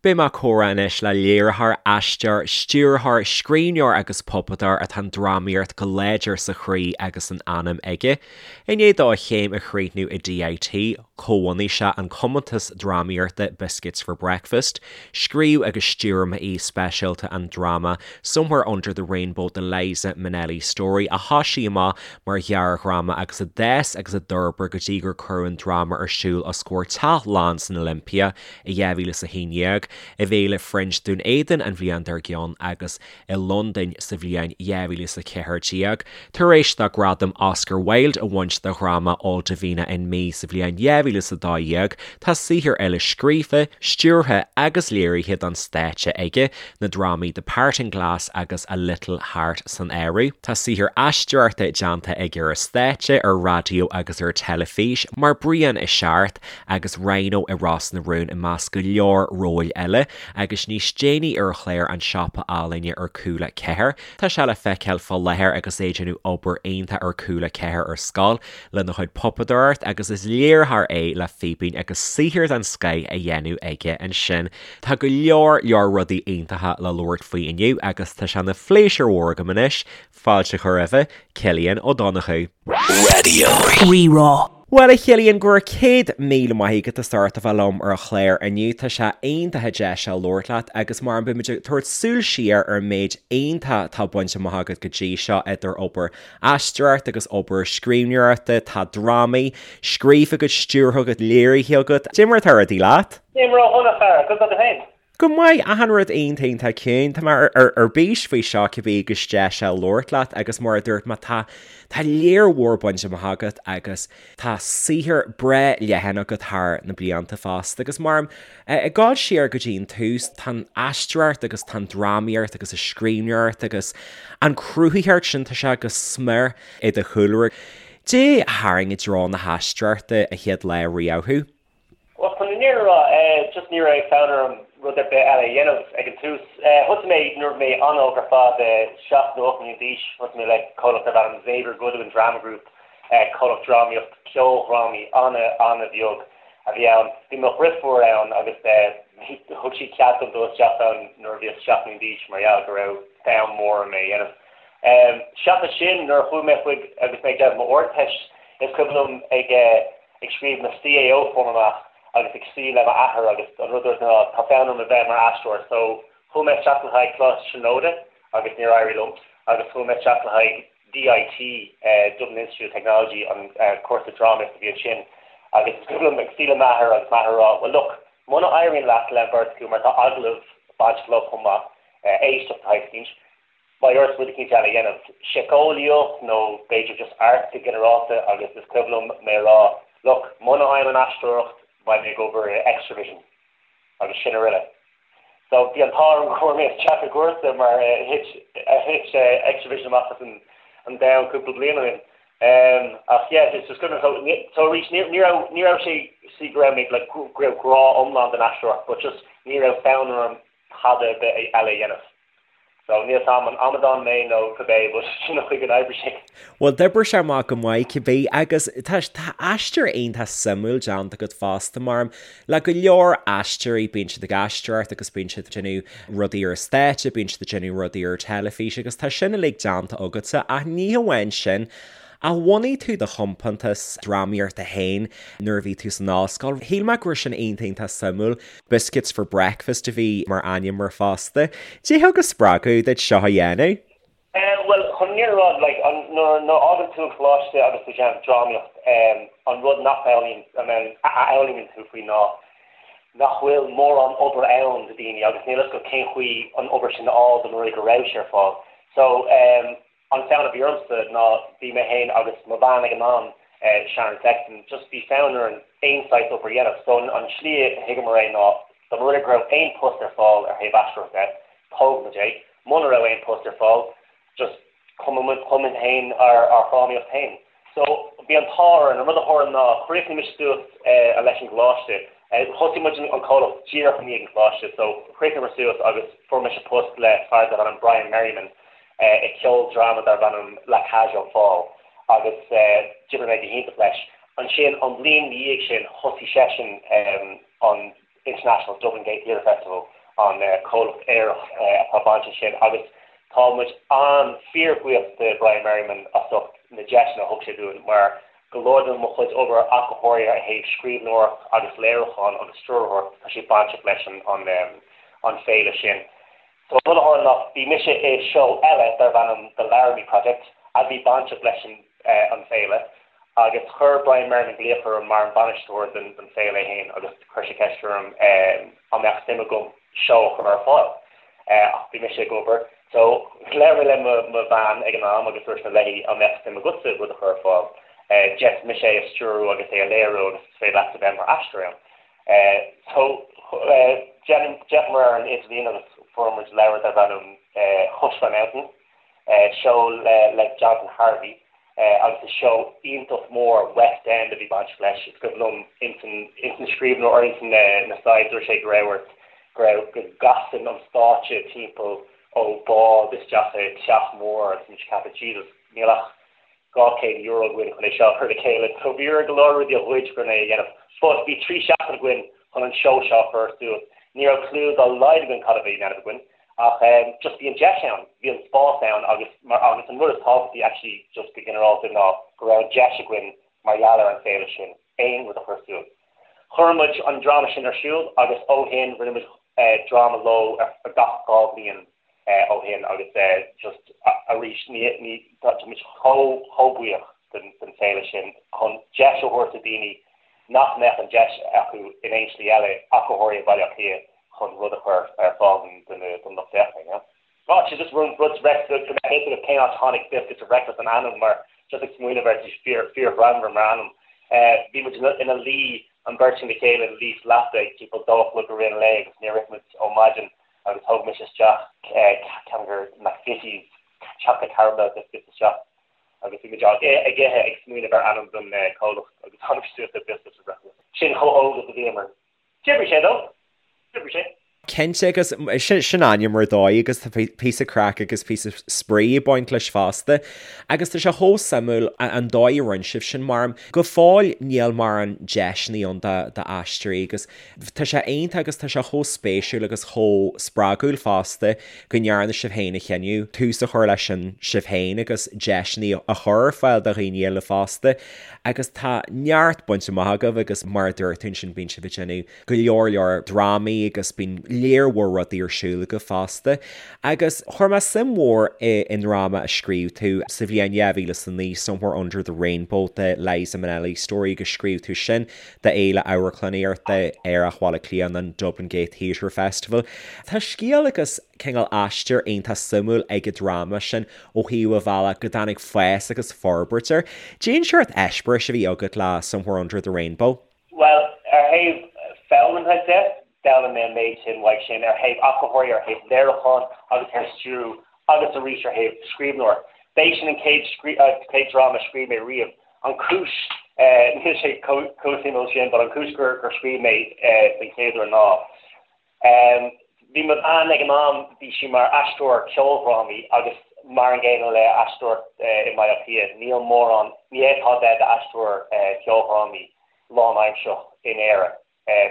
Beidh mé ag comhrá anois le léiritheoir, aisteoir, stiúrthóir, scríbhneoir agus puipeadóir atá an drámaíocht go láidir sa chroí agus san anam aige. I ndiaidh dó a chéim a chríochnú i DIT, chomhbhunaigh sé an compántas drámaíochta Biscuits for Breakfast. Scríobh agus stiúir m'aoi speisialta an dráma Somewhere Under the Rainbow The Liza Minnelli Story a thosaigh amach mar ghearrdhráma agus a d'fhás agus a d'fhorbair go dtí gur cuireadh an dráma ar siúl os comhair teach lán san Olympia i 2011, i bhFéile Fringe Dún Éideann an bhliain dár gcionn agus i Londain sa bhliain 2014. Tar éis dó gradam Oscar Wilde a bhaint dá dhráma All Davina and Me sa bhliain 2012, tá saothar eile scríofa, stiúrtha agus léirithe don stáitse aige, na drámaí The Parting Glass agus A Little Heart san áireamh. Tá saothar aisteoireachta déanta aige ar an stáitse, ar raidió agus ar teilifís, mar Brian i Searc, agus Rhino i Ros na Rún i measc go leor róil eile, agus níos déanaí ar chlár An Siopa Ealaíne ar Cúla 4. Tá sé le feiceáil fá láthair agus é ag déanamh obair iontach ar Cúla 4 ar scoil lena chuid puipeadóireacht agus is léiritheoir é le Fíbín agus saothar den scoith á dhéanamh aige ansin. Tá go leor leor rudaí iontacha le labhairt faoi inniu agus tá sé ina phléisiúr mhór agam anois fáilte a chur roimhe, Cillian Ó Donnchú. Raidió Rí-Rá. Bhuel, a Chillian, go raibh 100,000 maith agat as ucht a bheith liom ar an chlár inniu. Tá sé iontach an deis seo labhairt leat agus mar beidh muid ag tabhairt súil siar ar an méid iontach atá bainte amach agat go dtí seo idir obair aisteoireachta agus obair scríbhneoireachta. Tá drámaí scríofa agat, stiúrtha agat, léirithe agat. Cad é mar atá rudaí leat? Nílim ró-dhona, a chara. Conas tá tú féin? Go maith, achan rud iontach iontach ciúin. Tá mé ar bís faoi seo cibé agus deis a labhairt leat agus mar a dúirt mé tá tá lear mhór bainte amach agat agus tá saothar breá leathan agat thar na blianta fosta agus mar ag dul siar go dtí an tús tá an aisteoireacht agus tá an drámaíocht agus an scríbhneoireacht agus an cruthaitheacht sin tá sé go smior i do chúlra. Cad é a tharraing i dtreo na haisteoireachta an chéad lá riamh thú? Bhuel, chun an fhírinne a rá, just ní raibh fonn orm rud ar bith eile a dhéanamh ag an tús. Thosaigh mé nuair a bhí mé an-óg ar fad, 7 nó 8 mbliana d'aois, thosaigh mé le comhlacht darb ainm Xavier Goodwin Drama Group, comhlacht drámaíocht, ceoldrámaí an-an-bheag a bhí ann. Bhí mo dhriofúr ann agus thug sí cead dom dul isteach ann nuair a bhíos 7 mbliana d'aois mar gheall go raibh fonn mór orm é a dhéanamh. Seachas sin, nuair a chuaigh mé chuig agus mé ag déanamh m'Ardteist, is cuimhin liom ag ag scríobh mo CAO form amach agus ag suí le m'athair agus an rud a dúirt ná tá fonn orm a bheith mar aisteoir so chuaigh mé isteach le haghaidh Coláiste Tríonóide agus níor éirigh liom agus chuaigh mé isteach le haghaidh DIT, Dublin Institute of Technology, an cúrsa drámaíochta a bhí ansin agus is cuimhin liom ag suí le m'athair agus m'athair ag rá well look muna éiríonn leat le an bheirt acu mar tá agallamh bainteach leo chomh maith, éisteacht de shaghas eicínt. Beidh ort rud eicínt eile a dhéanamh, síceolaíocht nó b'fhéidir just arts go ginearálta agus is cuimhin liom mé a rá look, muna bhfaighim an aisteoireacht beidh mé ag obair i Xtra-vision agus sin uile. So bhí an t-ádh orm go bhfuair mé isteach i gcúrsa mar thit thit Xtra-vision amach as an an domhan cúpla bliain ó shin. Ach yeah, is just cuimhin so so arís ní ní raibh ní raibh sé sí go raibh mé like go raibh grá iomlán don aisteoireacht but just ní raibh fonn orm tada ar bith eile a dhéanamh. So níl 's a'm an amadán mé nó cibé but sin an chaoi gur oibrigh sé. Bhuel d'oibrigh sé amach go maith cibé agus tá tá aistear iontach suimiúil déanta agat fosta mar le go leor aisteoirí bíonn siad ag aisteoireacht agus bíonn siad ag déanamh rudaí ar an stáitse, bíonn siad ag déanamh rudaí ar teilifís agus tá sin uilig déanta agatsa ach ní hamháin sin ach bhunaigh tú do chompántas drámaíochta féin nuair a bhí tú san ollscoil. Shíl mé go raibh sin iontach iontach suimiúil. Biscuits for Breakfast a bhí mar ainm air fosta. Cad é a thug an spreagadh duit seo a dhéanamh? Bhuel, chun an fhírinne a rá, like, an, nuair, nuair a fhágann tú an coláiste agus tú ag déanamh drámaíocht, an rud nach bhfoghlaimíonn, a fhoghlaimíonn tú faoi ná nach bhfuil mórán obair ann do daoine agus níl a fhios agat cén chaoi an obair sin a fháil dá mba rud é go raibh sé ar fáil. So, An fonn a bhí ormsa ná bhí mé féin agus mo bhean ag an am, Sharon Sexton, just bhí fonn orainn aon saghas obair a dhéanamh. So an slí a thuigeamar é ná dá mba rud é go raibh aon post ar fáil ar thaobh aisteoireachta de, tógfaidh muid é. Muna raibh aon post ar fáil, just chum muid féin ár dhrámaíocht féin. So bhí an t-ádh orainn. An rud a tharla ná chríochnaigh mise suas leis an gcoláiste. Thosaigh muid an comhlacht díreach i ndiaidh an choláiste so chríochnaíomar suas agus fuair mise post le fear darbh ainm Brian Merriman i ceoldráma darb ainm La Cage aux Folles agus d'oibrigh mé go hiontach leis. Ansin an bhliain ina dhiaidh sin thosaigh seisean an International Dublin Gay Theatre Festival. an comhlacht aerach atá bainteach sin agus tá muid an-fhíorbhuíoch de Brian Merriman as ucht na deiseanna a thug sé dúinn mar go leor de mo chuid obair ach go háirithe ó thaobh scríbhneoireacht agus léiriúchán agus stiúrthóireacht tá sé bainteach leis an an féile sin. So an rud a tharla ná bhí mise i seó eile darbh ainm The Laramie Project a bhí bainteach leis an an féile agus chuir Brian Merriman glaoch orm mar an bainisteoir den den féile é féin agus chuir sé ceist orm an mbeadh suim agam seó a chur ar fáil. Ach bhí mise ag obair so labhair mé le mo mo bhean ag an am agus dúirt mé léi an mbeadh suim agatsa rud a chur ar fáil. D'fhéadfadh mise é a stiúrú agus é a léiriú agus is féidir leatsa bheith mar aisteoir ann. So d'fhéachamar ar an idirlíon agus fuair muid leabhar darb ainm Hush My Mountain, seó le le Jonathan Harvey agus is seó iontach mór West End a bhí bainteach leis. Is cuimhin liom ins an ins an scríbhneoir or ins na slides dúirt sé go raibh ort go raibh go gcasann an stáitse timpeall ó bád isteach i teach mór agus muid ag ceapadh Jesus níl ach €200 againn chun é seo a chur le chéile so bhí orainn go leor rudaí a ghoid chun é a dhéanamh. But bhí 3 seachtain againn chun an seó seo a chur suas. Ní raibh clue dá laghad againn cad a bhí á dhéanamh againn ach just bhí an deis ann, bhí an spás ann agus mar agus an rud is tábhachtaí actually just go ginearálta ná go raibh an deis againn mar gheall ar an féile sin aon rud a chur suas. Chuir muid an dráma sin ar siúl agus ó shin rinne muid dráma leo ar gach 2 bhliain ó shin agus just arís ní ní tá muid chomh chomh buíoch den den féile sin chun deis a thabhairt do daoine nach mbeadh an deis acu in aon slí eile ach go háirithe i Baile Átha Cliath chun rud a chur ar fáil don don lucht féachana, you know. Tá sé just rud rud go mbeadh a fhios agat cén áit a tháinig Biscuits for Breakfast an ainm mar just ag smaoineamh air tá sé fíor fíorghreannmhar mar ainm. Bhí muid ina luí an bheirt le chéile ina luí sa leapa ag timpeall 2 a chlog i rith an lae agus níor ith muid ó maidin agus thóg mise isteach ceann de McVitie's chocolate caramel biscuits isteach agus bhí muid ag ithe ag smaoineamh ar ainm don comhlacht agus tháinig suas le Biscuits for Breakfast. Sin chomh hóg is a bhíomar. D'oibrigh sé though. D'oibrigh sé. Cinnte agus sin ainm ar dóigh agus tá píosa craic agus píosa spraoi ag baint leis fosta. Agus tá sé chomh suimiúil an dóigh a rinne sibh sin mar go fóill níl mórán deiseanna ann d'aisteoirí agus tá sé iontach agus tá sé chomh spéisiúil agus chomh spreagúil fosta go ndearna sibh féin a chinneadh tús a chur leis sin sibh féin agus deiseanna a chur ar fáil do dhaoine eile fosta. Agus tá neart bainte amach agaibh agus mar a dúirt tú ansin bíonn sibh ag déanamh go leor leor drámaí agus bíonn léar mhór rudaí ar siúl agaibh fosta. Agus chuir mé suim mhór i i ndráma a scríobh tú sa bhliain 2009, Somewhere Under the Rainbow, The Liza Minnelli Story agus scríobh tú sin d'Fhéile Amharclannaíochta Aerach Bhaile Átha Cliath an Dublin Gate Theatre Festival. Tá scéal agus cineál aistear iontach suimiúil ag an dráma sin ó thaobh an bhealach go dtáinig fás agus forbairt air. Cén seort eispéiris a bhí agat le Somewhere Under the Rainbow? Bhuel, ar thaobh foghlamtha de, d'fhoghlaim mé an méid sin uaidh sin, ar thaobh acthóirí, ar thaobh léiriúcháin agus ar stiúrú agus arís ar thaobh scríbhneoir. B'é sin an chéad chéad dráma a scríobh mé riamh. An chúis, níl sé chomh suimiúil sin, but an chúis gur scríobh mé den chéad uair ná, Bhí mo bhean ag an am, bhí sí mar aisteoir ceoldrámaí agus mar an gcéanna le aisteoireacht i mBaile Átha Cliath, níl mórán, ní fhéadfá bheith i d'aisteoir ceoldrámaí lánaimsearach in Éire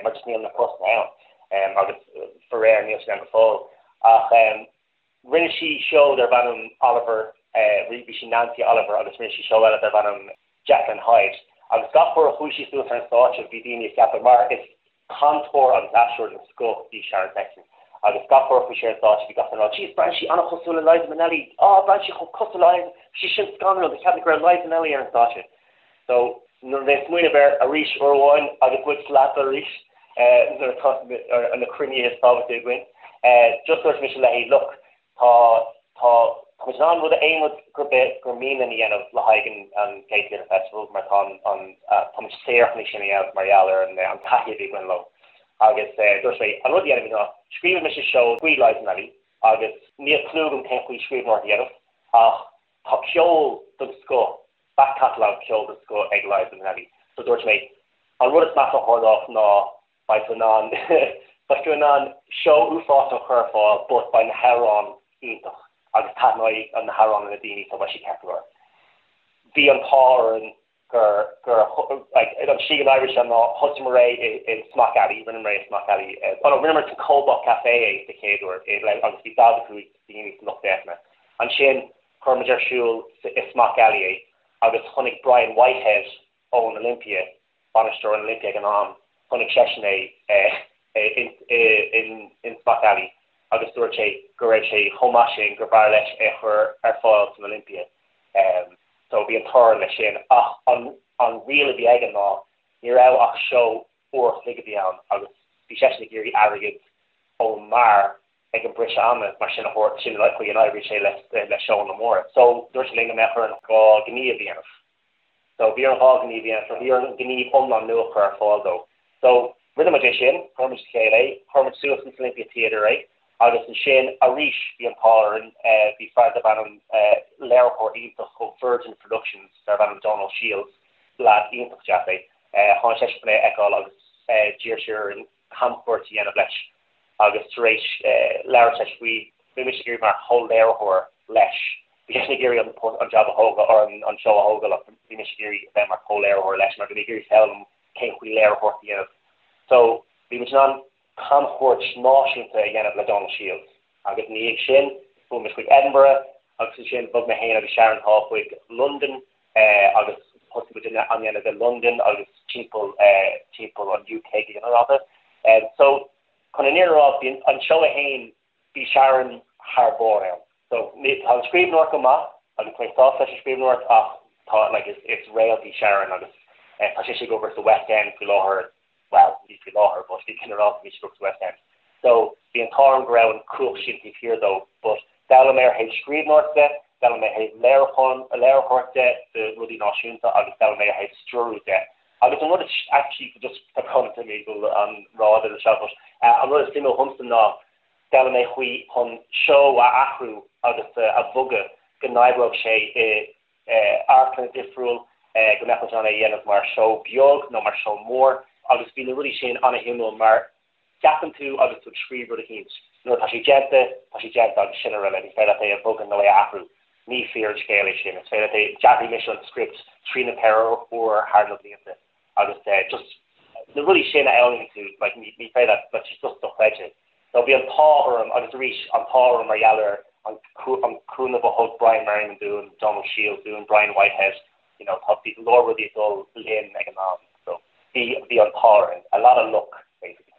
mar just níl na postanna ann agus faraor níl siad ann go fóill. Ach rinne sí seó darb ainm Oliver, bhí sí Nancy Oliver agus rinne sí seó eile darb ainm Jekyll and Hyde agus gach uair a chuaigh sí suas ar an stáitse bhí daoine ag ceapadh mar is Cainteoir agus aisteoir den scoth í Sharon Sexton agus gach uair a chuaigh sí ar an stáitse bhí gach duine ag rá Jeez, braitheann sí an-chosúil le Liza Minnelli, ah braitheann sí chomh cosúil le Liza, bhí sí sin scanrúil, do cheap mé go raibh Liza Minnelli ar an stáitse. So nuair a bhí mé ag smaoineamh air arís uair amháin agus muid sa leapa arís nuair atá na cruinnithe is tábhachtaí againn, just dúirt mise léi look, Tá, tá, tá muid in ann rud, aon rud gur bith, gur mian linn a dhéanamh le haghaidh an, an Gate Theatre Festival mar tá an, an, tá muid saor chun é sin a dhéanamh mar gheall ar an, an taithí a bhí againn leo. Agus dúirt mé, an rud a dhéanfaimid ná, scríobfaidh mise seó faoi Liza Minnelli agus níl clue agam cén chaoi scríbhneoireacht a dhéanamh ach tá ceol den scoth, back catalogue ceol den scoth ag Liza Minnelli. So dúirt mé, an rud is measa a tharlódh ná Beidh tú in ann, beidh tú in ann seó uafásach a chur ar fáil but beidh na hamhráin iontach agus taitneoidh na hamhráin le daoine so beidh sé ceart go leor. Bhí an t-ádh orainn. Gur, gur, like, an tslí go n-oibríonn sé ná thosaíomar é i, i Smock Alley, rinneamar é i Smock Alley, oh no, rinneamar sa Cobalt Café é sa chéad uair i, le, agus bhí 45 daoine sa lucht féachana. Ansin chuir muid ar siúl sa, i Smock Alley é agus chonaic Brian Whitehead ón Olympia, bainisteoir an Olympia ag an am, chonaic seisean é i, i, in, in Smock Alley agus dúirt sé go raibh sé chomh maith sin gur b'fhearr leis é a chur ar fáil san Olympia. So bhí an t-ádh orainn leis sin. Ach an an riail a bhí aige ná ní raibh ach seó uair a chloig a bhí ann agus bhí seisean ag iarraidh airgead ón mbeár ag an briseadh ama mar sin a thabhairt, sin an chaoi a n-oibríonn sé le le seóanna móra. So dúirt sé linn go mbeadh orainn 2 ghníomh a dhéanamh. So bhí orainn 2 ghníomh a dhéanamh, so bhí orainn gníomh iomlán nua a chur ar fáil dó. So rinne muid é sin, chuir muid le chéile é, chuir muid suas in Olympia Theatre é agus ansin arís bhí an t-ádh orainn, bhí fear darb ainm, léiritheoir iontach ó Virgin Productions darb ainm Donal Shields, leaid iontach deas é, tháinig seisean chun é a fheiceáil agus d'iarr sé orainn camchuairt a dhéanamh leis agus tar éis labhairt leis faoi, bhí mise ag iarraidh mar chomh-léiritheoir leis, bhí seisean ag iarraidh an an jab a thógáil, or an seó a thógáil ach bhí mise ag iarraidh a bheith mar chomh-léiritheoir leis mar bhí mé ag iarraidh foghlaim cén chaoi léiritheoireacht a dhéanamh. So bhí muid in ann camchuairt náisiúnta a dhéanamh le Donal Shields agus ina dhiaidh sin chuaigh muid chuig Edinburgh agus ansin bhog mé féin agus Sharon Thaw chuig Londain agus thosaigh muid á dhéanamh i Londain agus timpeall timpeall an UK go ginearálta. So chun an fhírinne a rá bhí an seó é féin bhí Sharon thar barr ann. So tá an scríbhneoireacht go maith agus tá mé sásta leis an scríbhneoireacht ach tá like is is réalt í Sharon agus tá sise ag obair sa West End faoi láthair, bhuel ní faoi láthair but go ginearálta bhí sí ag obair sa West End. So bhí an t-ádh orm go raibh an cumhacht sin taobh thiar dó but d'fhoghlaim mé ar thaobh scríbhneoireacht de, d'fhoghlaim mé ar thaobh léiriúcháin léiritheoireacht de de rudaí náisiúnta agus d'fhoghlaim mé ar thaobh stiúrú de. Agus an rud is actually just tá brón orm go bhfuil an rád ar seo but an rud is suimiúil dhomsa ná d'fhoghlaim mé chaoi chun seó a athrú agus a bhogadh go n-oibreodh sé i amharclann difriúil, go mbeadh muid in ann é a dhéanamh mar seó beag nó mar seó mór agus bhí na rudaí sin an-shuimiúil mar ceapann tú agus tú ag scríobh rud eicínt, nuair atá sé déanta, tá sé déanta agus sin araile, ní féidir leat é a bhogadh nó é a athrú. Ní fíor an scéal é sin, is féidir leat é, d'athraigh mise an script trí nó 4 uair thar na blianta agus just na rudaí sin a fhoghlaimíonn tú, like ní féidir leat, like just dochreidte. So bhí an t-ádh orm agus arís an t-ádh orm mar gheall ar an an cúnamh a thug Brian Merriman dúinn, Donal Shields dúinn, Brian Whitehead, you know tá bhí go leor rudaí ag dul linn ag an am so bhí bhí an t-ádh orainn, a lot of luck basically.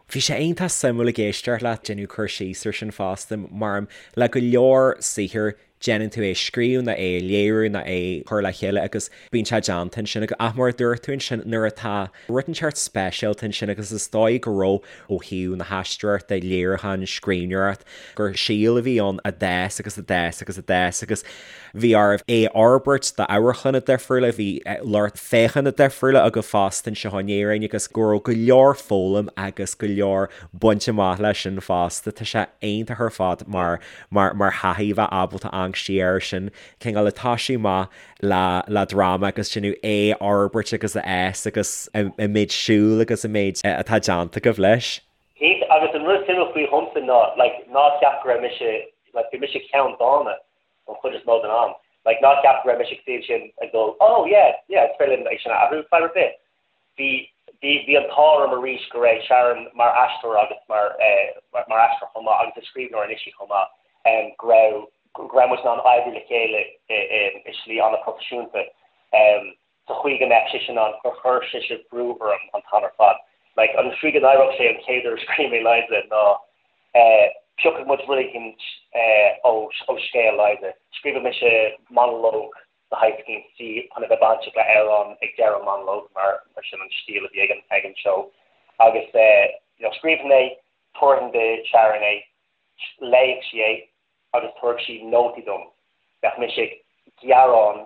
Bhí sé iontach suimiúil ag éisteacht leat déanamh cur síos ar sin fosta mar le go leor saothair déanann tú é a scríobh nó é a léiriú nó é a chur le chéile agus bíonn sé déanta ansin ach mar a dúirt tú ansin nuair atá rud inteacht speisialta ansin agus is dóigh go raibh ó thaobh na haisteoireachta, léiriúcháin, scríbhneoireacht, gur síol a bhí ann a d'fhás agus a d'fhás agus a d'fhás agus bhí oraibh é a fhorbairt d'amharclanna difriúla, bhí lucht féachana difriúla agaibh fosta anseo in Éirinn agus go raibh go leor foghlaim agus go leor bainte amach leis sin fosta. Tá sé iontach ar fad mar mar mar thaithí a bheith ábalta amharc siar air sin, cineál ag toisiú amach le le dráma agus déanamh é a fhorbairt agus a fhás agus an méid siúil agus an méid atá déanta agaibh leis. Cinnte, agus an rud suimiúil faoi dhomsa ná like ná ceap go raibh mise like bhí mise ceanndána an chuid is mó den am. Like ná ceap go raibh mise ag suí ansin ag dul oh yeah yeah is féidir linn é sin a athrú fadhb ar bith. Bhí, bhí, bhí an t-ádh orm arís go raibh Sharon mar aisteoir agus mar, mar aisteoir chomh maith agus is scríbhneoir anois í chomh maith, go raibh, go raibh muid in ann oibriú le chéile i, i, i slí an-phroifisiúnta sa chaoi go mbeadh sise in ann, gur chuir sise brú orm an t-am ar fad. Like, an tslí go n-oibreodh sé an chéad uair a scríobh mé Liza ná piocfaidh muid rud éicint ó, ó scéal Liza. Scríobhfaidh mise monalóg de shaghas eicínt di chun a bheith bainteach le amhrán ag deireadh an monalóg mar sin an stíl a bhí ag an ag an seó agus you know scríobhfainn é, tabharfainn do Sharon é, léifeadh sí é agus tabharfadh sí nótaí dom. Bheadh mise ag gearán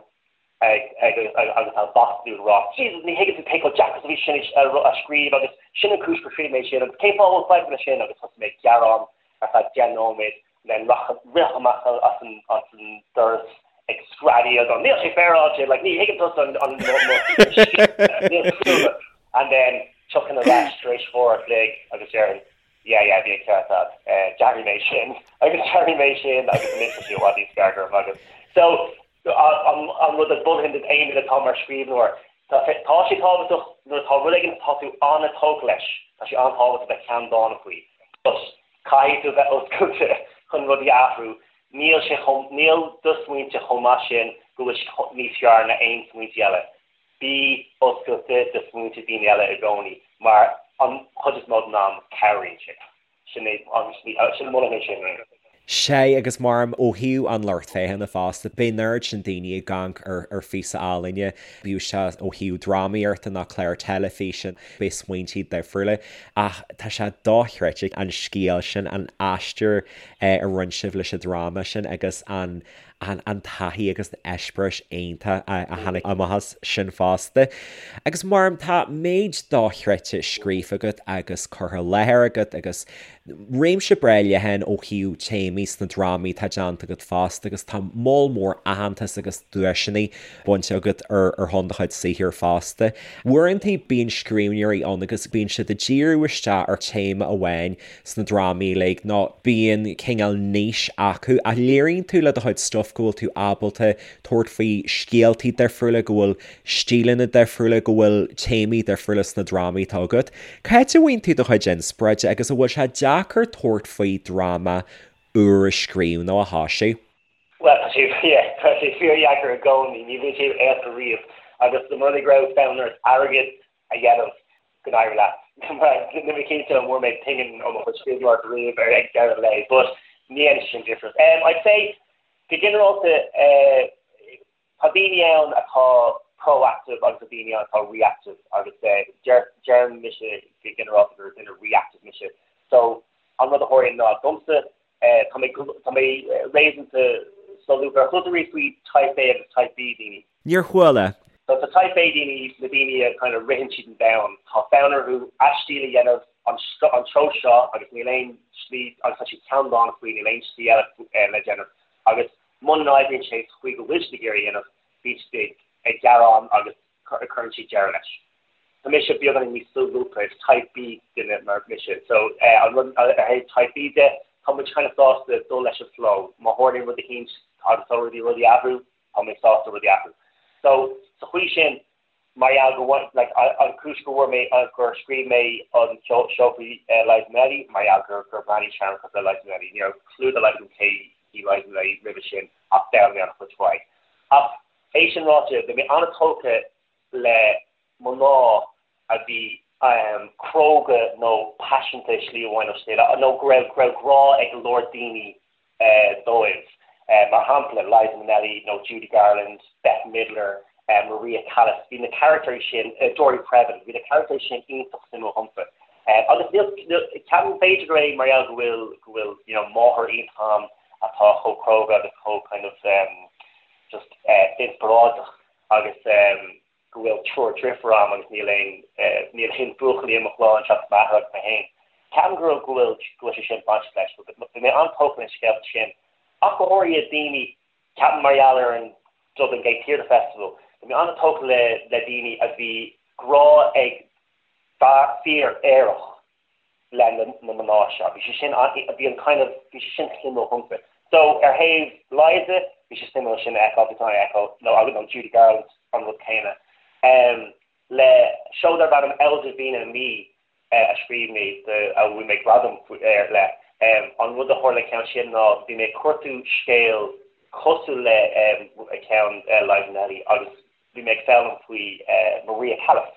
ag ag agus á mhaslú ag rá Jesus ní thuigeann tú cé chomh deacair is a bhí sin a scríobh agus sin an cúis gur scríobh mé sin agus cén fáth a bhfuil fadhb leis sin agus thosaigh mé ag gearán ar feadh 10 nóiméad then rith amach as an as an doras ag screadaíl go níl sé féaráilte like ní thuigeann tusa an an níl and then tiocfainn ar ais tar éis uair a chloig agus déarfainn yeah yeah bhí an ceart agat eh d'athraigh mé sin agus d'athraigh mé sin agus anois tá sé i bhfad níos fearr go raibh maith agat so. An rud a mholfainn d'aon duine atá mar scríbhneoir, tá sé tábhachtach nuair atá rud éigin atá tú an-tógtha leis, tá sé an-tábhachtach bheith ceanndána faoi. But caithfidh tú bheith oscailte chun rudaí a athrú. Níl sé chomh, níl do smaointe chomh maith sin go bhfuil siad níos fearr ná aon smaointe eile. Bí oscailte do smaointe daoine eile i gcónaí mar an chuid is mó den am cabhraíonn sé. Sin é an sin molaim é sin. Sea, agus mar ó thaobh an lucht féachana fosta, beidh an oiread sin daoine ag amharc ar ar phíosa ealaíne, bíodh sé ó thaobh drámaíochta nó clár teilifíse, beidh smaointí difriúla, ach tá sé dochreidte an scéal sin, an aistear a rinne sibh leis an dráma sin agus an an an taithí agus an eispéireas iontach a tháinig amach as sin fosta. Agus mar tá méid dochreidte scríofa agat agus curtha i láthair agat agus réimse breá leathan ó thaobh téamaí sna drámaí atá déanta agat fosta agus tá moll mór aitheantas agus duaiseanna bainte agat ar ar shon do chuid saothair fosta. Uaireanta bíonn scríbhneoirí ann agus bíonn siad ag díriú isteach ar téama amháin sna drámaí uilig nó bíonn cineál niche acu ach léiríonn tú le do chuid stuif go bhfuil tú ábalta tabhairt faoi scéaltaí difriúla, go bhfuil stíleanna difriúla, go bhfuil téamaí difriúla sna drámaí atá agat. Cá háit a bhfaigheann tú do chuid inspioráide agus an bhfuil sé deacair tabhairt faoi dráma úr a scríobh nó a thoisiú? Bhuel, tá sé, yeah, tá sé fíordheacair i gcónaí, ní bhíonn sé éasca riamh agus dá mba rud é go raibh fonn ort airgead a dhéanamh go n-éirí leat. Níl mé cinnte an bhfuair mé pingin ó mo chuid scríbhneoireachta riamh ar ag deireadh an lae, but ní dhéanann sé sin difríocht. Um, I'd say, go ginearálta, uh, tá daoine ann atá proactive agus tá daoine ann atá reactive agus uh, deir, deirim mise go ginearálta gur duine reactive mise. So, an rud a tharlaíonn ná domsa, uh, tá mé, tá mé réasúnta solúbtha. Ar chuala tú riamh faoi Type A agus Type B daoine? Níor chuala. So tá Type A daoine, na daoine a kind of ritheann siad an domhan, tá fonn orthu a stíl a dhéanamh an an treo seo agus níl aon slí agus tá siad ceanndána faoi, níl aon slí eile le déanamh agus muna n-oibríonn sé sa chaoi go bhfuil siad ag iarraidh a dhéanamh, bíonn siad ag gearán agus cuireann siad deireadh leis. Tá mise beagáinín níos solúbtha, is Type B duine mar mise. So an rud ar thaobh Type B de, tá muid kind of sásta dul leis an flow, má tharlaíonn rud eicínt agus tá rudaí rudaí ag athrú, tá mé sásta rudaí a athrú. So, sa chaoi sin, mar gheall go bhfuair, like, an chúis go bhfuair mé, gur scríobh mé an seó faoi Liza Minnelli, mar gheall gur, gur bhreathnaigh sé cosúil le Liza Minnelli. Ní raibh clue dá laghad agam cé hí Liza Minnelli roimhe sin ach d'fhoghlaim mé an-chuid faoi. Ach é sin ráite, bhí mé an-tógtha le mná a bhí cróga nó paiseanta i slí amháin nó slí eile, nó go raibh, go raibh grá ag go leor daoine dóibh. Mar shampla, Liza Minnelli nó Judy Garland, Bette Midler, Maria Callas, bhí na carachtair sin, Dory Previn, bhí na carachtair sin iontach suimiúil dhomsa. Agus níl, níl, ceapaim b'fhéidir gur é mar gheall go bhfuil, go bhfuil, you know, máthair iontach agam atá chomh cróga agus chomh kind of just inspioráideach agus go bhfuil triúr driofúr agam agus níl aon níl aon buachaillí i mo chlann seachas m'athair agus mé féin. Ceapaim go raibh go bhfuil go bhfuil sé sin bainteach leis. Bhí mé an-tógtha leis na scéalta sin ach go háirithe daoine, ceapaim mar gheall ar an Dublin Gate Theatre Festival, bhí mé an-tógtha le le daoine a bhí grá ag fear aerach le na mná seo. Bhí sé sin, bhí an kind of, bhí sé sin suimiúil dhomsa. So, ar thaobh Liza, bhí sé suimiúil sin a fheiceáil, bhí sé a fheiceáil, nó agus nó Judy Garland, an rud céanna. Um, le seó darb ainm El Divina Me a scríobh mé, a bhfuair mé gradam air le, um, an rud a tharla le ceann sin ná bhí mé ag cuartú scéal cosúil le um, ceann uh, Liza Minnelli agus Bhí mé ag foghlaim faoi Maria Callas,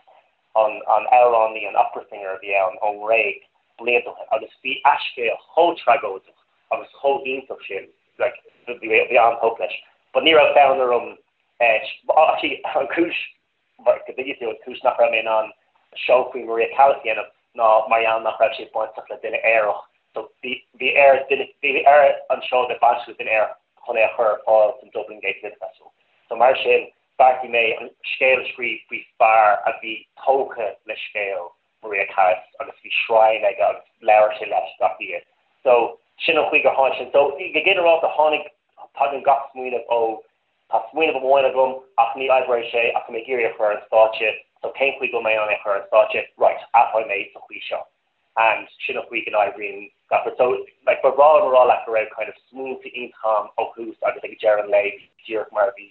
an amhránaí, an opera singer a bhí ann ón nGréig blianta ó shin agus bhí a scéal chomh tragóideach agus chomh iontach sin, like, bhí mé an-tógtha leis. But ní raibh fonn orm, actually an chúis, go dtuigfidh tú, an chúis nach raibh mé in ann seó faoi Maria Callas a dhéanamh ná mar gheall nach raibh sé bainteach le duine aerach so bhí bhí ar duine bhí ar an seó a bheith bainteach le duine aerach chun é a chur ar fáil san Dublin Gate Theatre Festival. So mar sin, bheartaigh mé an scéal a scríobh faoi fear a bhí tógtha le scéal Maria Callas agus bhí shrine aige agus labhair sé leis gach oíche. So sin an chaoi gur tháinig sin. So go ginearálta tháinig, tagann gach smaoineamh ó, tá smaoineamh amháin agam ach ní oibreoidh sé ach tá mé ag iarraidh é a chur ar an stáitse, so cén chaoi go bhfuil mé in ann é a chur ar an stáitse? Right, athróidh mé sa chaoi seo. And sin an chaoi go n-oibríonn gach rud. So like ba bhreá liom a rá leat go raibh kind of smaointe iontach agam ó thús agus ag deireadh an lae bhí díreach mar a bhí.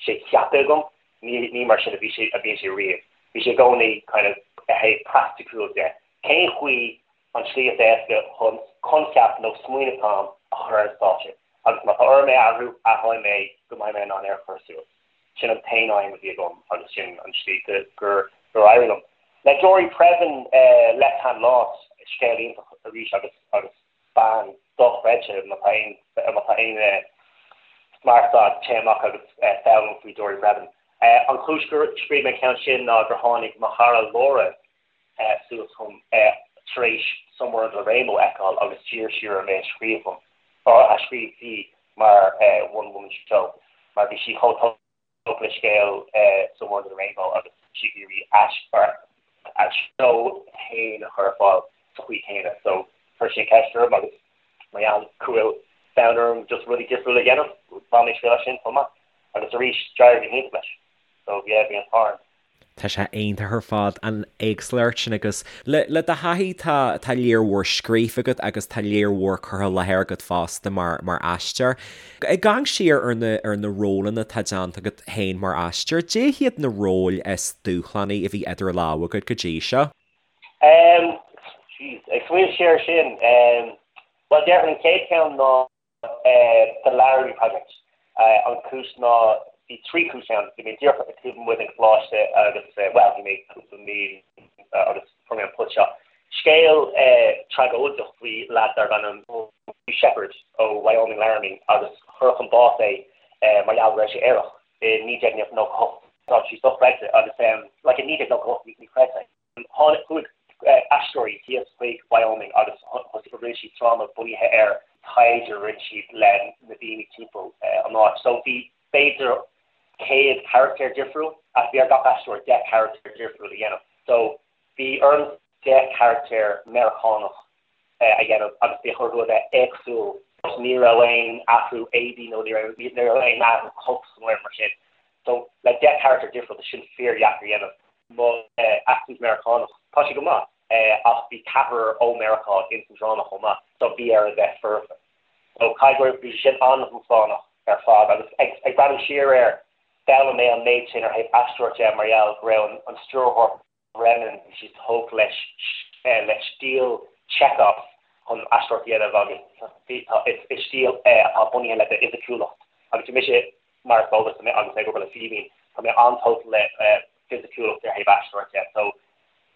sé ceaptha agam, ní ní mar sin a bhí sé a bhíonn sé riamh. Bhí sé i gcónaí kind of ar thaobh praiticiúil de. Cén chaoi an tslí is éasca chun coincheap nó smaoineamh atá agam a chur ar an stáitse? Agus má tá orm é a athrú, athróidh mé go mbeidh mé in ann é a chur suas. Sin an t-aon aidhm a bhí agam agus sin an tslí gur gur éirigh liom. Le Dory Previn, Left Hand Lost, scéal iontach arís agus agus bean dochreidte, má tá aon má tá aon smart agat téigh amach agus foghlaim faoi Dory Previn. An chúis gur scríobh mé an ceann sin ná gur tháinig mo chara Laura suas chugam tar éis Somewhere Under the Rainbow a fheiceáil agus d'iarr sí orm é a scríobh dom, a scríobh di mar one woman show mar bhí sí chomh tógtha le scéal Somewhere Under the Rainbow agus bhí sí ag iarraidh a seó féin a chur ar fáil sa chaoi chéanna. So chuir sí an cheist orm agus mar gheall go bhfuil fonn orm just rudaí difriúla a dhéanamh, bhain mé triail as sin chomh maith. Agus arís, d'éirigh go hiontach leis. So yeah, bhí an t-ádh orm. Tá sé iontach ar fad, an éagsúlacht sin agus le le do thaithí tá tá lear mhór scríofa agat agus tá lear mhór curtha i láthair agat fosta mar mar aisteoir. Ag amharc siar ar na ar na rólanna atá déanta agat féin mar aisteoir, cad iad na róil is dúshlánaí a bhí idir lámha agat go dtí seo? Ehm, jeez, ag smaoineamh siar ar sin, ehm, bhuel déarfainn an chéad cheann ná The Laramie Project. An chúis ná, bhí 3 chúis ann. Bhí mé díreach taobh amuigh den choláiste agus, bhuel, bhí mé cúpla mí agus fuair mé an post seo. Scéal tragóideach faoi leaid darbh ainm Hugh Shepherd ó Wyoming Laramie agus cuireadh chun bás é mar gheall go raibh sé aerach i 1998. Tá sé dochreidte agus like i 1998 ní chreidfeá é. Tháinig chuaigh aisteoirí thíos chuig Wyoming agus thosaigh rinne siad dráma bunaithe ar taighde a rinne siad le na daoine timpeall an áit. So bhí b'fhéidir 100 carachtar difriúil ach bhí ar gach aisteoir 10 carachtar difriúil a dhéanamh. So bhí orm 10 carachtar Meiriceánach a dhéanamh agus bhí orthu a bheith éagsúil. Ní raibh aon athrú éadaí nó ní raibh ní raibh aon athrú cos nó aon mar sin. So le 10 carachtar difriúil tá sin fíordheacair a dhéanamh. Mo accent Meiriceánach, tá sé go maith, ach bhí ceathrar ó Meiriceá ins an dráma chomh maith, so bhí air a bheith foirfe. So caithfidh go raibh, bhí sé sin an-dúshlánach ar fad agus ag ag breathnú siar air, d'fhoghlaim mé an méid sin ar thaobh aisteoireacht de mar gheall go raibh an an stiúrthóir Brennan, bhí sé tógtha leis le stíl Chekhov chun aisteoireacht a dhéanamh agus bhí tá is is stíl é atá bunaithe le d'fhisiciúlacht agus bhí mise mar is eol duit agus mé ag obair le Fíbín, tá mé an-tógtha le fisiciúlacht ar thaobh aisteoireacht de. So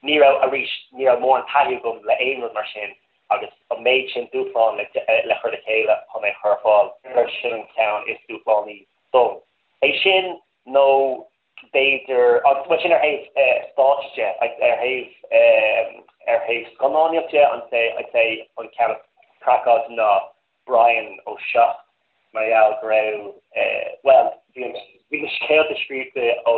ní raibh, arís, ní raibh mórán taithí agam le aon rud mar sin agus an méid sin dúshlán le le chur le chéile chun é a chur ar fáil, sin an ceann is dúshlánaí dom. É sin nó b'fhéidir, agus bhuel sin ar thaobh stáitse de, ar thaobh ar thaobh scannánaíocht de, I'd say, I'd say an ceann is craiceáilte ná Brian ó 7 mar gheall go raibh, bhuel, bhí an, bhí na scéalta scríofa ó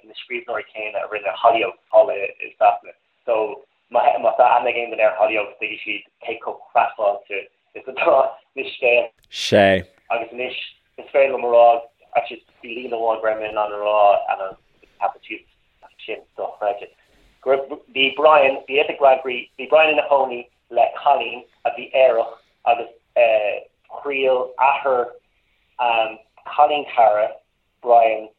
na scríbhneoirí céanna a rinne Hollyoaks thall i Sasana. So má má tá aithne ag aon duine ar Hollyoaks tuigfidh siad cé chomh craiceáilte is atá na scéalta. Sea. Agus anois is féidir liom a rá, actually bhí líne amháin go raibh mé in ann a rá and I ceapadh siad sin dochreidte. Go raibh, bhí Brian, bhí fhios ag Brian, bhí Brian ina chónaí le cailín a bhí aerach agus thriail athair cailín cara Brian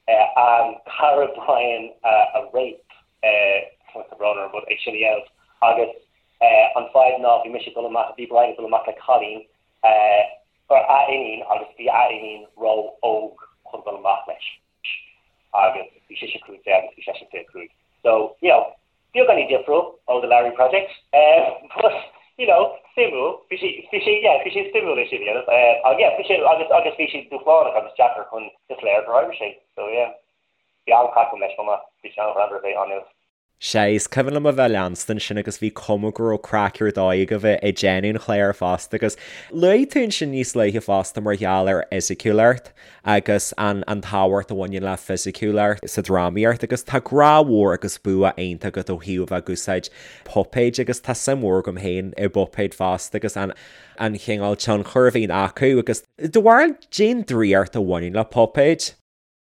cara Brian a rape tá brón orm but é sin a dhéanamh agus an fadhb ná bhí mise ag dul amach bhí Brian ag dul amach le cailín a iníon agus bhí a iníon ró-óg chun dul amach leis. agus bhí sise 15 agus bhí seisean 25. So, you know, beagáinín difriúil ó The Laramie Project, but, you know, suimiúil, bhí sé, bhí sé, yeah, bhí sé suimiúil é sin a dhéanamh, uh, yeah, bhí sé, agus, agus bhí sé dúshlánach agus deacair chun is léir gur oibrigh sé, so yeah, bhí an-chraic agam leis chomh maith, bhí sé an-ghreannmhar a bheith ann. Sea, is cuimhin liom a bheith ag leanstan sin agus bhí cuma go raibh craic ar dóigh agaibh ag déanamh an chláir fosta agus luaigh tú ansin níos luaithe fosta mar gheall ar fhisiciúlacht agus an an tábhacht a bhaineann le fisiciúlacht sa drámaíocht agus tá grá mhór agus bua iontach agat ó thaobh a bheith ag úsáid puipéid agus tá suim mhór agam féin i bpuipéid fosta agus an an chineál tionchair a bhíonn acu agus do bharúil cén draíocht a bhaineann le puipéid?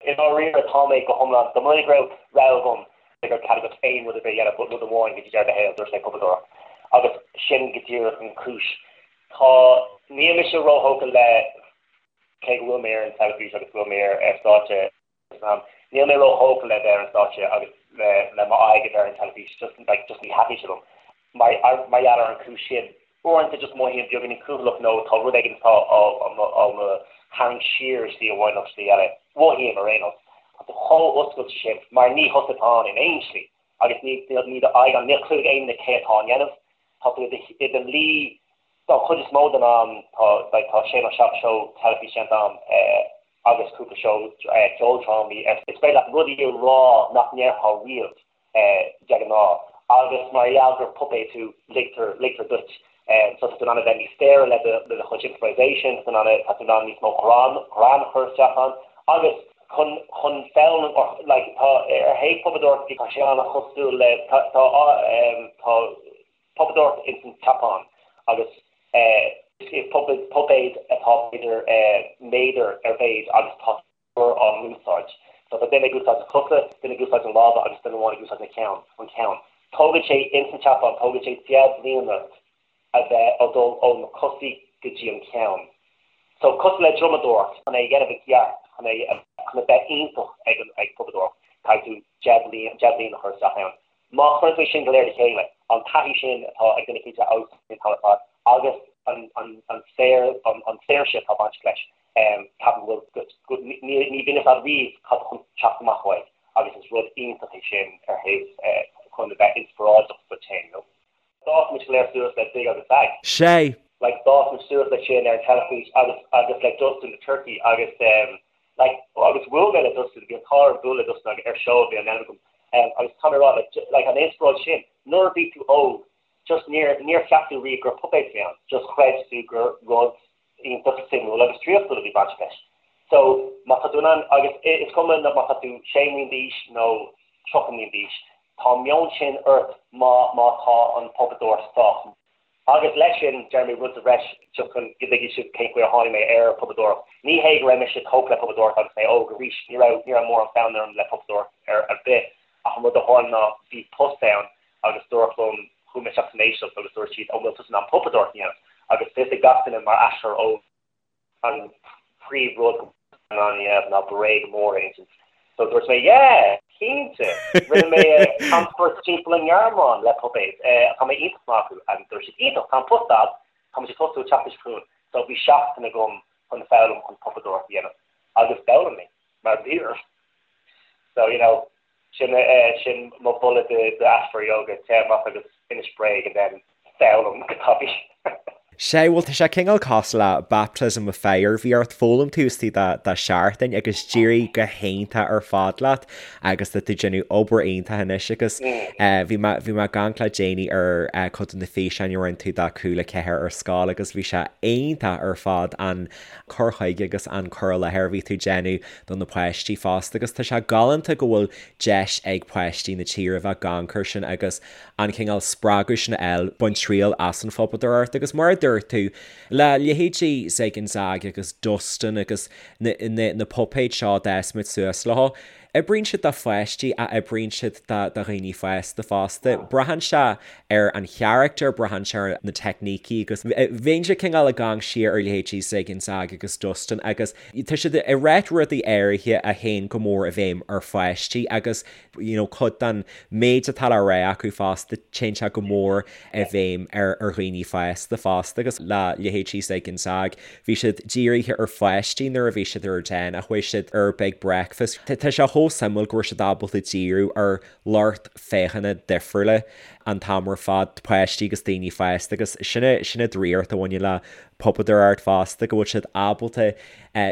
I ndáiríre, tá mé go hiomlán, dá mba rud é go raibh rogha agam, go raibh cead agat aon rud ar bith a dhéanamh but rud amháin go dtí deireadh do shaoil, dúirt mé puipeadóireacht. Agus sin go díreach an chúis. Tá, níl mise róthógtha le. Cé go bhfuil mé ar an teilifís agus go bhfuil mé ar stáitse san am, níl mé róthógtha le bheith ar an stáitse agus le le m'aghaidh a bheith ar an teilifís, just like just ní thaitníonn sé liom. Mar mar gheall ar an chúis sin, uaireanta just mothaím beagáinín cúthaileach nó tá rud éigin atá á á mo á mo tharraingt siar i slí amháin nó slí eile. Mothaím ar aon nós. Tá tú chomh oscailte sin mar ní thusa atá ann in aon slí agus ní ní do aghaidh ann, níl clue ag aon duine cé atá á ndéanamh. Tá tú i do luí Don chuid is mó den am tá like tá sé nó 7 seó teilifíse déanta agam agus cúpla seó ceoldrámaí. Is féidir leat rudaí a rá nach ndéarfá riamh de ghnáth agus mar gheall gur puipéad tú ligtear ligtear duit. So tá tú in ann a bheith níos saoire le do le do chuid improvisation, tá tú in ann tá tú in ann níos mó greann greann a chur isteach ann agus chun chun foghlaim or like tá ar thaobh puipeadóireachta tá sé an-chosúil le tá tá tá puipeadóireacht ins an tSeapáin agus is puipéad atá b'fhéidir méadar ar mhéid agus tá triúr á n-úsáid. So tá duine ag úsáid na cosa, duine ag úsáid na lámha agus duine amháin ag úsáid na ceann, an ceann. Tógann sé ins an tSeapáin, tógann sé 10 mbliana a bheith ag dul ó na cosaí go dtí an ceann. So cosúil le drumadóireacht, chun é a dhéanamh i gceart, chun é chun a bheith iontach ag an ag puipeadóireacht, caithfidh tú 10 bliain, 10 bliain a chur isteach ann. Má chuireann tú é sin go léir le chéile, an taithí sin atá ag duine éicint a fheabhsaíonn an t-am ar fad agus an saoirse atá bainteach leis, ceapaim go bhfuil, ní bhíonn fhios agat riamh cad tá chun teacht amach uaidh agus is rud iontach é sin ar thaobh chun a bheith inspioráideach duit féin, you know. D'fhás muid go léir suas le Zig agus Zag. Sea! Like d'fhás muid suas le sin ar an teilifís agus agus le Dustin the Turkey agus um like agus bhuail mé le Dustin, bhí an t-ádh orm bualadh le Dustin agus ar seó a bhí á ndéanamh agam um agus tá mé ag rá like like an inspioráid sin nuair a bhí tú óg just níor níor cheap tú riamh gur puipéad a bhí ann just chreid tú gur rud iontach suimiúil agus draíochtúil a bhí bainteach leis. So, má tá tú in ann, agus is cuma má tá tú 6 mbliana d'aois nó 30 mbliana d'aois, tá an meon sin ort má má tá an puipeadóir sách. Agus leis sin, déarfaidh mé rud sa bhreis just chun go dtuigfidh sibh cén chaoi ar tháinig mé ar puipeadóireacht. Ní hé go raibh mise tógtha le puipeadóireacht agus mé óg arís, ní raibh ní raibh mórán fonn orm le puipeadóireacht ar ar bith ach an rud a tharla ná bhí post ann agus dúradh liom, chuaigh mé isteach san éisteacht agus dúirt siad, an bhfuil tusa in ann puipeadóireacht a dhéanamh? Agus fios ag gach duine mar aisteoir óg an príomh rud go in ann a dhéanamh ná bréag mór a insint. So dúirt mé, yeah! Cinnte! Rinne mé camchuairt timpeall an nGearmáin le puipéid. Tá mé iontach maith acu. Agus dúirt siad, iontach, tá an post agat, tá muid ag tosú an tseachtain seo chugainn. So bhí seachtain agam chun foghlaim chun puipeadóireacht a dhéanamh. Agus d'fhoghlaim mé, mar bhí orm. So, you know, Sin sin mo mholadh d'aisteoirí óga, téigh amach agus inis bréag and then foghlaim go tapaidh. Sea, bhuel tá sé cineál cosúil le baptism of fire, bhí ort foghlaim taobh istigh de sheachtain agus d'éirigh go hiontach ar fad leat agus tá tú ag déanamh obair iontach anois agus bhí mé bhí mé ag amharc le déanaí ar cuid de na físeáin a rinne tú do Cúla 4 ar scoil agus bhí sé iontach ar fad an cur chuige agus an cur i láthair a bhí tú ag déanamh do na páistí fosta agus tá sé galánta go bhfuil deis ag páistí na tíre bheith ag amharc air sin agus an cineál spreagadh sin a fháil, baint triail as an phuipeadóireacht agus mar a dúirt tú, le leithéidí Zig and Zag agus Dustin agus na na na puipéid seo a d'fhás muid suas leo, Oibríonn siad do pháistí ach oibríonn siad do dhaoine fásta fosta. Braitheann sé ar an charachtar, braitheann sé ar na teicnící agus bheinnse cineál ag amharc siar ar leithéidí Zig and Zag agus Dustin agus tá siad ag ráit rudaí áirithe a théann go mór i bhfeidhm ar pháistí agus you know cuid den méid atá le rá acu fosta téann sé go mór i bhfeidhm ar dhaoine fásta fosta agus le leithéidí Zig and Zag Bhí siad dírithe ar pháistí nuair a bhí siad ar ardán ach chuaigh siad ar Big Breakfast. Tá sé chomh suimiúil go raibh siad ábalta díriú ar lucht féachana difriúla an t-am ar fad, páistí agus daoine fásta agus sin sin an draíocht a bhaineann le puipeadóireacht fosta, go bhfuil siad ábalta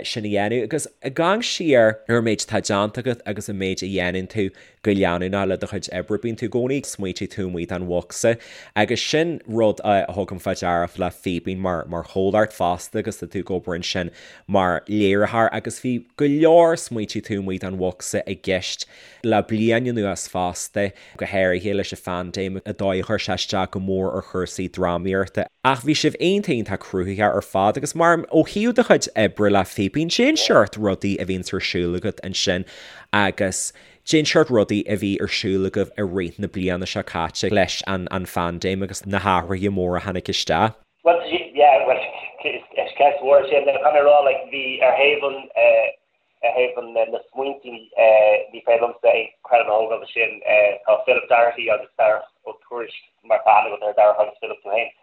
sin a dhéanamh. Agus ag amharc siar ar an méid atá déanta agat agus an méid a dhéanann tú, go leanúnach le do chuid oibre. Bíonn tú i gcónaí ag smaointiú taobh amuigh den bhocsa agus sin rud a thugaim fá deara le Fíbín mar mar chomhlacht fosta agus tá tú ag obair ansin mar léiritheoir agus bhí go leor smaointiú taobh amuigh den bhocsa i gceist le bliain anuas fosta, go háirithe leis an phaindéim, an dóigh a chuir sé isteach go mór ar chúrsaí drámaíochta. Ach bhí sibh iontach iontach cruthaitheach ar fad agus mar ó thaobh do chuid oibre le Fíbín, cén seort rudaí a bhíonns ar siúl agat ansin agus cén seort rudaí a bhí ar siúl agaibh i rith na bliana seo caite leis an an phaindéim agus na hathruithe móra a tháinig isteach. Bhuel, yeah, bhuel, Is ceist mhór é sin. Caithfidh mé a rá, like, bhí ar thaobh an, ar thaobh an, na smaointí, ní féidir liomsa aon credit a thógáil de sin. Tá Philip Doherty agus Darach Ó Tuairisg, mar tá aithne agat ar Darach agus Philip tú féin.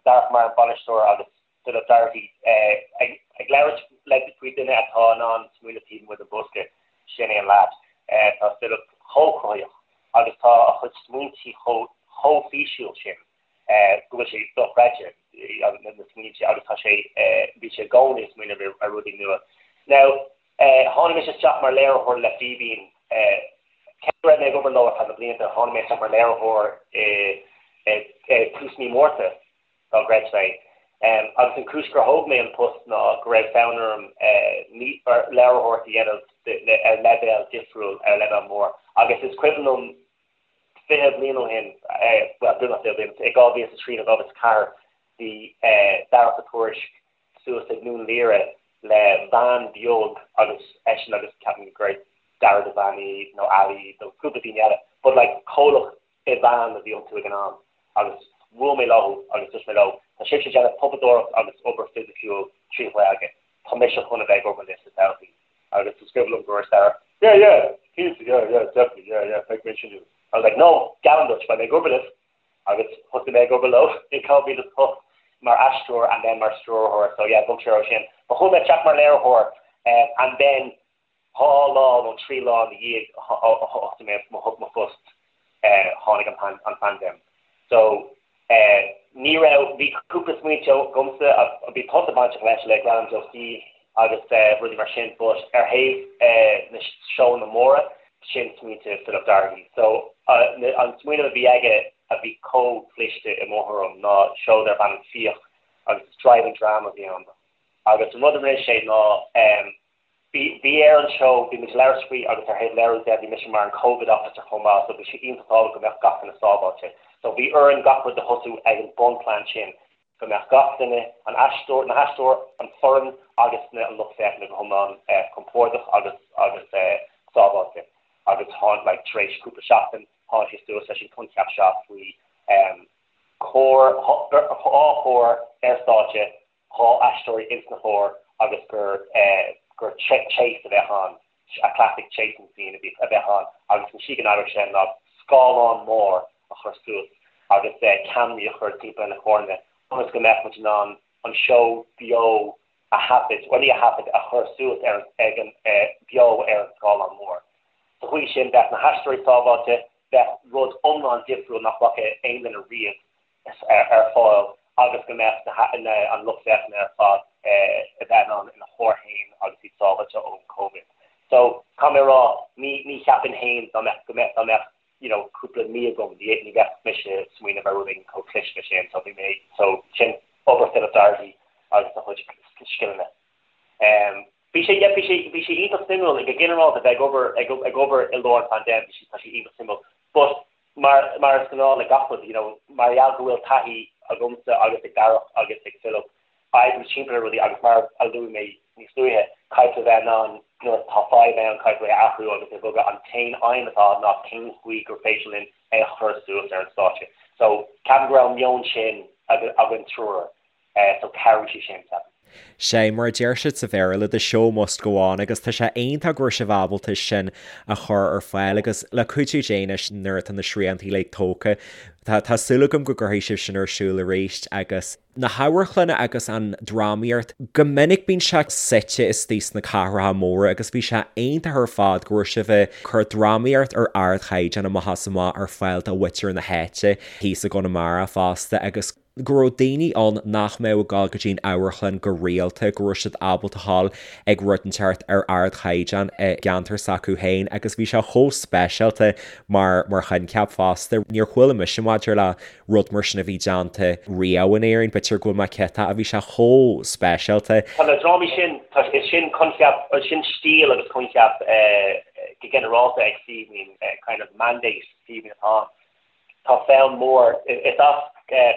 Darach mar an bainisteoir agus Philip Doherty ag labhairt le faoi duine atá in ann smaoineamh taobh amuigh den bhosca, sin é an leaid. Tá Philip chomh cruthaitheach agus tá a chuid smaointí chomh chomh físiúil sin go bhfuil sé dochreidte na smaointe agus tá sé bhí sé i gcónaí ag smaoineamh ar rudaí nua. Now tháinig mise isteach mar léiritheoir le Fíbín cé go raibh mé ag obair leo ar feadh na blianta, tháinig mé isteach mar léiritheoir i tús mí Márta dá gcreidfeá é. Agus an chúis gur thóg mé an post ná go raibh fonn orm léiritheoireacht a dhéanamh ar leibhéal difriúil, ar leibhéal mór. Agus is cuimhin liom 20 bliain ó shin, bhuel, beagnach 20 bliain, i 2003 nó 2004, bhí Darach Ó Tuairisg suas ag nDún Laoghaire le veain bheag agus eisean agus ceapaim go raibh Dara Devaney nó Ali nó cúpla daoine eile, but like comhlacht i veain a bhí iontu ag an am agus bhuail mé leo agus dúirt mé leo, tá sibhse ag déanamh puipeadóireacht agus obair fisiciúil trí Ghaeilge, tá mise chun a bheith ag obair libh sa todhchaí. Agus is cuimhin liom go dúirt Darach, yeah, yeah, cinnte, yeah, yeah, definitely, yeah, yeah, beidh mé sin. I was like, no, geallaim duit, beidh mé ag obair libh. Agus thosaigh mé ag obair leo in 2008 mar aisteoir and then mar stiúrthóir, so yeah, bhog sé ó sin. But chuaigh mé isteach mar léiritheoir and then 2 lá nó 3 lá ina dhiaidh a thosaigh mé mo phost tháinig an phaindéim. So ní raibh, bhí cúpla smaointe agamsa, bhí tusa bainteach leis le Gradam Joe Steve agus rudaí mar sin but ar thaobh na seóanna móra, sin smaointe Philip Doherty. So an smaoineamh a bhí aige a bhí chomh cliste i mo thuairim ná seó darb ainm Fiach agus is driving drama a bhí ann. Agus an rud a rinne sé ná Bhí ar an seó, bhí muid ag labhairt faoi agus ar thaobh léiriú de, bhí mise mar an Covid officer chomh maith so bhí sé iontach tábhachtach go mbeadh gach duine sábháilte. So bhí orainn gach rud a thosú ag an bunplean sin, go mbeadh gach duine, an aisteoir, na haisteoir, an foireann agus na an lucht féachana go hiomlán compordach agus agus sábháilte. Agus tháinig, like, tar éis cúpla seachtain, tháinig sé suas leis an coincheap seo faoi chór, dhá chór ar stáitse, 2 aisteoirí ins na cóir agus gur gur chase a bheadh ann, a classic chasing scene a bhí a bheadh ann agus an tslí go n-oibreodh sé ná scáileán mór a chur suas agus ceamaraí a chur timpeall ar na córanna ionas go mbeadh muid in ann an seó beo a thaifead, bhuel ní a thaifead, a chur suas ar ag an beo ar an scáileán mór. Sa chaoi sin bheadh na haisteoirí sábháilte, bheadh rud iomlán difriúil nach bhfaca aon duine riamh ar fáil agus go mbeadh an lucht féachana ar fad a bheith in ann ina chór féin agus iad sábháilte ón Covid. So, caithfidh mé a rá, ní ní cheapfainn féin dá mbeadh go mbeadh dá mbeadh you know cúpla mí agam ní ní bheadh mise ag smaoineamh ar rud éigin chomh cliste sin. So bhí mé so sin obair Philip Doherty agus a chuid scileanna. Um, bhí sé yeah, bhí sé bhí sé iontach suimiúil go ginearálta bheith ag obair ag ag obair i lár an phaindéim bhí sé tá sé iontach suimiúil. But Mar, mar is gnáth le gach rud, you know, mar gheall go bhfuil taithí agamsa agus ag Darach agus ag Philip oibriú timpeall ar rudaí agus mar a luaigh mé níos luaithe, caithfidh tú a bheith in ann nuair atá fadhb ann, caithfidh tú é a athrú agus a bhogadh. An t-aon aidhm atá ná cén chaoi gur féidir linn é a chur suas ar an stáitse. So, ceapaim go raibh an meon sin againn triúr. So chabhraigh sé sin, ceapaim. Sé mar a deir siad sa Bhéarla, the show must go on agus tá sé iontach go raibh sibh ábalta sin a chur ar fáil agus le cuidiú Dé anois nuair atá na srianta uilig tógtha, tá tá súil agam go gcuirfidh sibh sin ar siúl arís agus na hamharclanna agus an drámaíocht, go minic bíonn sé suite istigh sna cathracha móra agus bhí sé iontach ar fad go raibh sibh ag cur drámaíocht ar ardchaighdeán amach is amach ar fáil do mhuintir na háite thíos i gConamara fosta agus go raibh daoine ann nach mbeadh ag dul go dtí an amharclann go rialta, go raibh siad ábalta a ghabháil ag rud inteacht ar ardchaighdeán i gceantar s'acu féin agus bhí sé chomh speisialta mar mar choincheap fosta. Níor chuala mise maidir le rud mar sin a bhí déanta riamh in Éirinn, b'fhéidir go bhfuil mé ciotach, bhí sé chomh speisialta. Tá na drámaí sin, tá, is sin coincheap, sin stíl agus coincheap go ginearálta ag Fíbín, kind of mandate Fíbín atá ann. Tá fonn mór, is as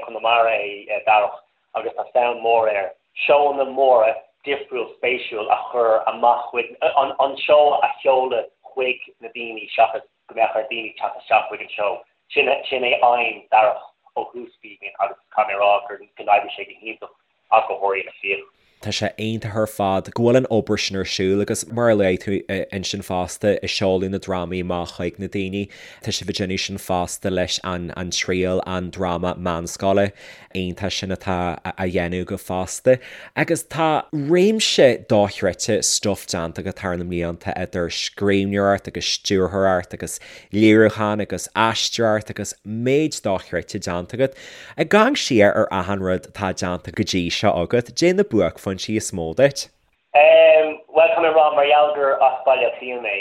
Conamara é Darach agus tá fonn mór air seóanna móra difriúil spéisiúil a chur amach chuig, an seó a sheoladh chuig na daoine seachas go mbeadh ar daoine teacht isteach chuig an seó. Sin, sin é aidhm Darach ó thús Fíbín agus caithfidh mé a rá gur, go n-oibrigh sé go hiontach. Ach go háirithe na fiacha. Tá sé iontach ar fad go bhfuil an obair sin ar siúl agus mar a luaigh tú ansin fosta i seoladh na drámaí amach chuig na daoine, tá sibh ag déanamh sin fosta leis an An Triail, an dráma meánscoile iontach sin atá á dhéanamh agaibh fosta. Agus tá réimse dochreidte stuif déanta agat thar na mblianta idir scríbhneoireacht agus stiúrthóireacht agus léiriúchán agus aisteoireacht agus méid dochreidte déanta agat. Ag amharc siar ar achan rud atá déanta go dtí seo agat, caidé na buaicphointí is mó duit? Em, bhuel, tá mé ag rá, mar gheall gur as Baile Átha Cliath mé,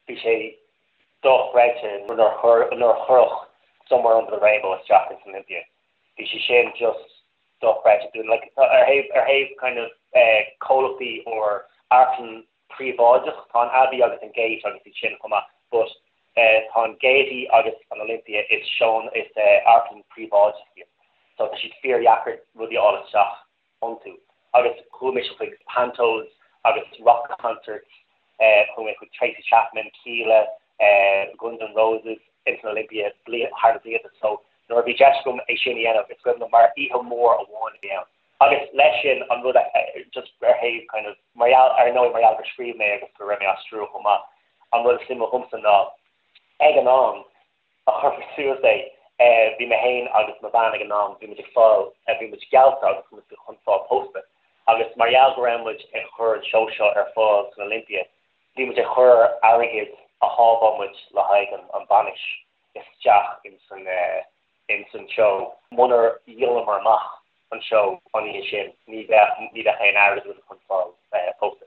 bhí sé dochreidte nuair a chuir, nuair a cuireadh Somewhere Under the Rainbow isteach ins an Olympia. Bhí sé sin just dochreidte dúinn. Like, ar thaobh, ar thaobh kind of eh comhlachtaí or amharclann príobháideach, tá an Abbey agus an Gate agus iad sin chomh maith, but tá an Gaiety agus an Olympia, is seónna, is amharclann príobháideach iad so tá siad fíordheacair rudaí a fháil isteach iontu. Agus chuaigh mise chuig pantos agus rock concerts, chuaigh mé chuig Tracy Chapman, Kíla, Guns N' Roses ins an Olympia thar na blianta so nuair a bhí deis agam é sin a dhéanamh is cuimhin liom mar oíche mhór amháin a bhí ann. Agus leis sin, an rud a, just ar thaobh kind of, mar gheall, ar ndóigh mar gheall gur scríobh mé agus go raibh mé á stiúradh chomh maith, an rud is suimiúla dhomsa ná, ag an am a chuir suas é, bhí mé féin agus mo bhean ag an am, bhí muid ag fáil, bhí muid geallta agus bhí muid chun fáil pósta. Agus mar gheall go raibh muid ag cur an seó seo ar fáil san Olympia, bhí muid ag cur airgead a shábháil muid le haghaidh an bainis isteach ins an, ins an seó. Munar dhíolamar amach an seó an oíche sin, ní bheadh, ní bheadh aon airgead againn chun fáil pósta.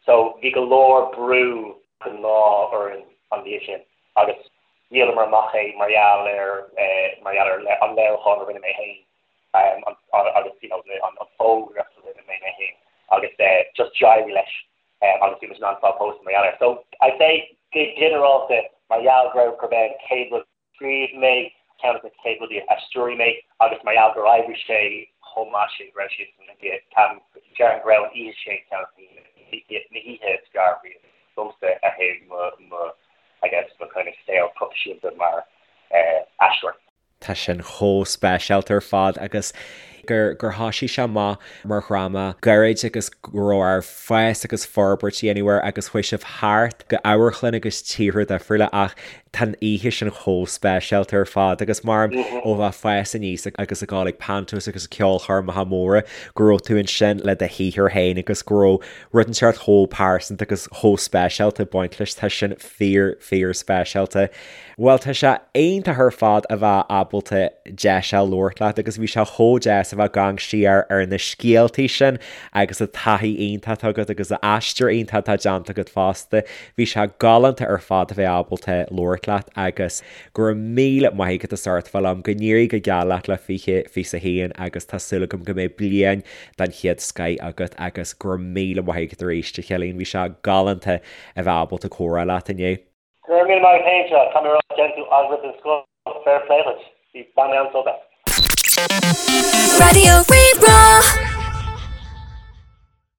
So bhí go leor brú an lá orainn an oíche sin agus dhíolamar amach é mar gheall ar, mar gheall ar an léiriúchán a rinne mé féin agus you know an fógraíocht a rinne mé mé féin agus just d'éirigh leis agus bhí muid in ann fáil pósta mar gheall air. So I'd say go ginearálta mar gheall go raibh, gurb é an chéad rud, scríobh mé ceann de na chéad rudaí a stiúraigh mé agus mar gheall gur oibrigh sé chomh maith sin go raibh sé san Olympia, déarfainn go raibh an oíche sin ceann de na hoíche is fearr riamh domsa ar thaobh mo, mo, I guess, mo kind of saol proifisiúnta mar aisteoir. Tá sin chomh speisialta ar fad agus gur gur thoisigh sé amach mar dhráma gairid agus go raibh air fás agus forbairt a dhéanamh air agus chuaigh sibh thart go amharclanna agus tíortha difriúla ach tá an oíche sin chomh speisialta ar fad agus mar ó bheith ag fás aníos agus ag dul ag pantos agus ceolchoirmeacha móra go raibh tú ansin le do shaothar féin agus go raibh rud inteacht chomh pearsanta agus chomh speisialta ag baint leis tá sin fíor fíor speisialta. Bhuel tá sé iontach ar fad a bheith ábalta deis a labhairt leat agus bhí sé chomh deas a bheith ag amharc siar ar na scéaltaí sin agus an taithí iontach atá agat agus an aistear iontach atá déanta agat fosta. Bhí sé galánta ar fad a bheith ábalta labhairt leat agus go raibh míle maith agat as ucht a bheith liom, go n-éirí go geal leat le 2021 agus tá súil agam go mbeidh bliain den chéad scoith agat agus go raibh míle maith agat arís a Chillian, bhí sé galánta a bheith ábalta comhrá leat inniu. Go raibh míle maith agat féin, seo, tá mé ag rá déanann tú agallamh den scoth, fair play duit, bhí, bhain mé an-sult as. Raidió Rí-Rá.